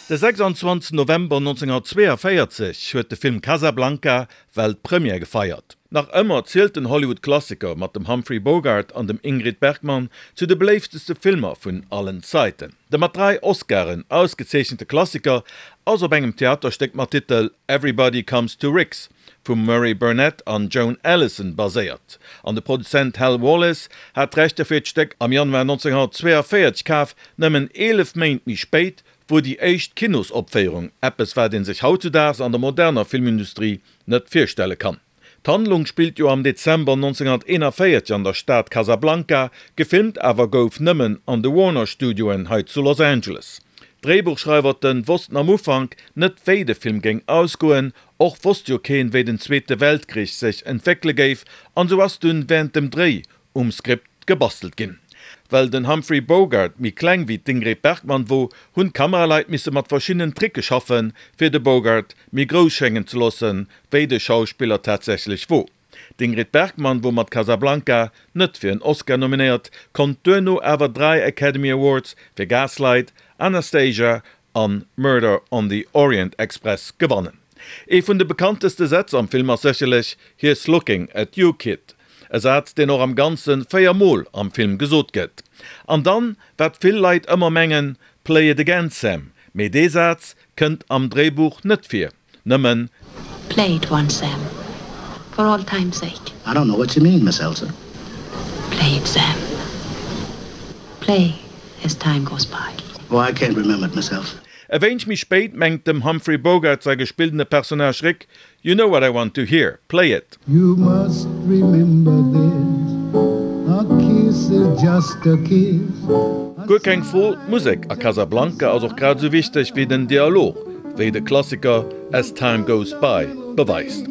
De 26 November 1942 huet de Film Casablanca Weltpremière gefeiert. Nach ëmmer zielt den Hollywood-Klassiker mat dem Humphrey Bogart an dem Ingrid Bergman zu de beléifteste Filmer vun allen Zaiten. De mat 3 Oscaren ausgezeechente Klassiker ass op engem Theaterstéck mat Titel Everybody Comes to Rick's vum Murray Burnett an Joan Allison baséiert, an de Produzent Hal Wallis hat d'Rechter fir d'Stéck am Januar 1942 kaf, nëmmen 11 Méint méi spéit wor déi éischt Kinosopféierung, eppes wat een sech hautzudaags an der moderner Filmindustrie net virstelle kann. D'Handlung spillt jo am Dezember 1941 an der Stad Casablanca, gefilmt awer gouf nëmmen an de Warner Studioen hei zu Los Angeles. D'Dréibuchschreiwerten wossten am Ufank net wéi de Film géing ausgoen, och wosst jo keen wéi den Zweete Weltkrich sech entwéckele géif an sou ass dunn während dem Dréi um Skript gebastelt ginn. Well den Humphrey Bogart méi kleng wéi d'Ingrid Bergman wor, hunn d'Kameraleit misse mat verschiddenen Tricke schaffen, fir de Bogart méi grouss schéngen ze loossen, wéi de Schauspiller tatsächlech wor. D'Ingrid Bergman wor mat Casablanca net fir en Oscar nominéiert, konnt duerno awer 3 Academy Awards fir Gaslight, Anastasia an Murder on the Orient Express gewannen. Ee vun de bekannteste Sätz am Film ass sécherlech Here's looking at you, kid, e Saz deen och am Ganze 4 Mol am Film gesot gëtt. An dann, wat vill Leit ëmmer mengen, Play it again, Sam, mee dee Saz kënnt am Dréibuch net vir, nëmmen. Play it once, Sam, for old time's sake. I don't know what you mean, Miss Elsa. Play it, Sam. Play as time goes by. Oh, I can't remember it, Miss Elsa. E wéineg méi spéit mengt dem Humphrey Bogart säi gespilltene Personnage Rick, You know what I want to hear, play it. You must remember this, a kiss is just a kiss. Guer keng Fro, d'Musek a Casablanca ass och grad esou wichteg wéi den Dialog, wéi de Klassiker As Time Goes By beweist.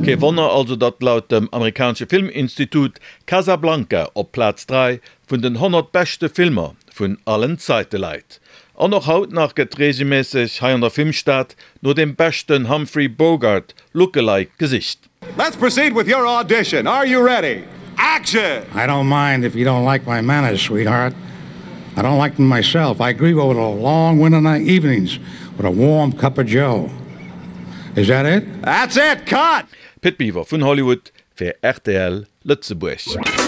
Kee Wonner also, datt laut dem amerikanesche Filminstitut Casablanca op Plaz 3 vun den 100 beschte Filmer vun allen Zaite läit. An och haut nach gëtt reegelméisseg hei an der Filmstad no dem beschten Humphrey Bogart Lookalike gesicht. Let's proceed with your audition. Are you ready? Action! I don't mind if you don't like my manners, sweetheart. I don't like them myself. I grieve over the long winter night evenings with a warm cup of joe. Is that it? That's it! Cut! Pit Biwer vun Hollywood fir rtl Lëtzebuerg.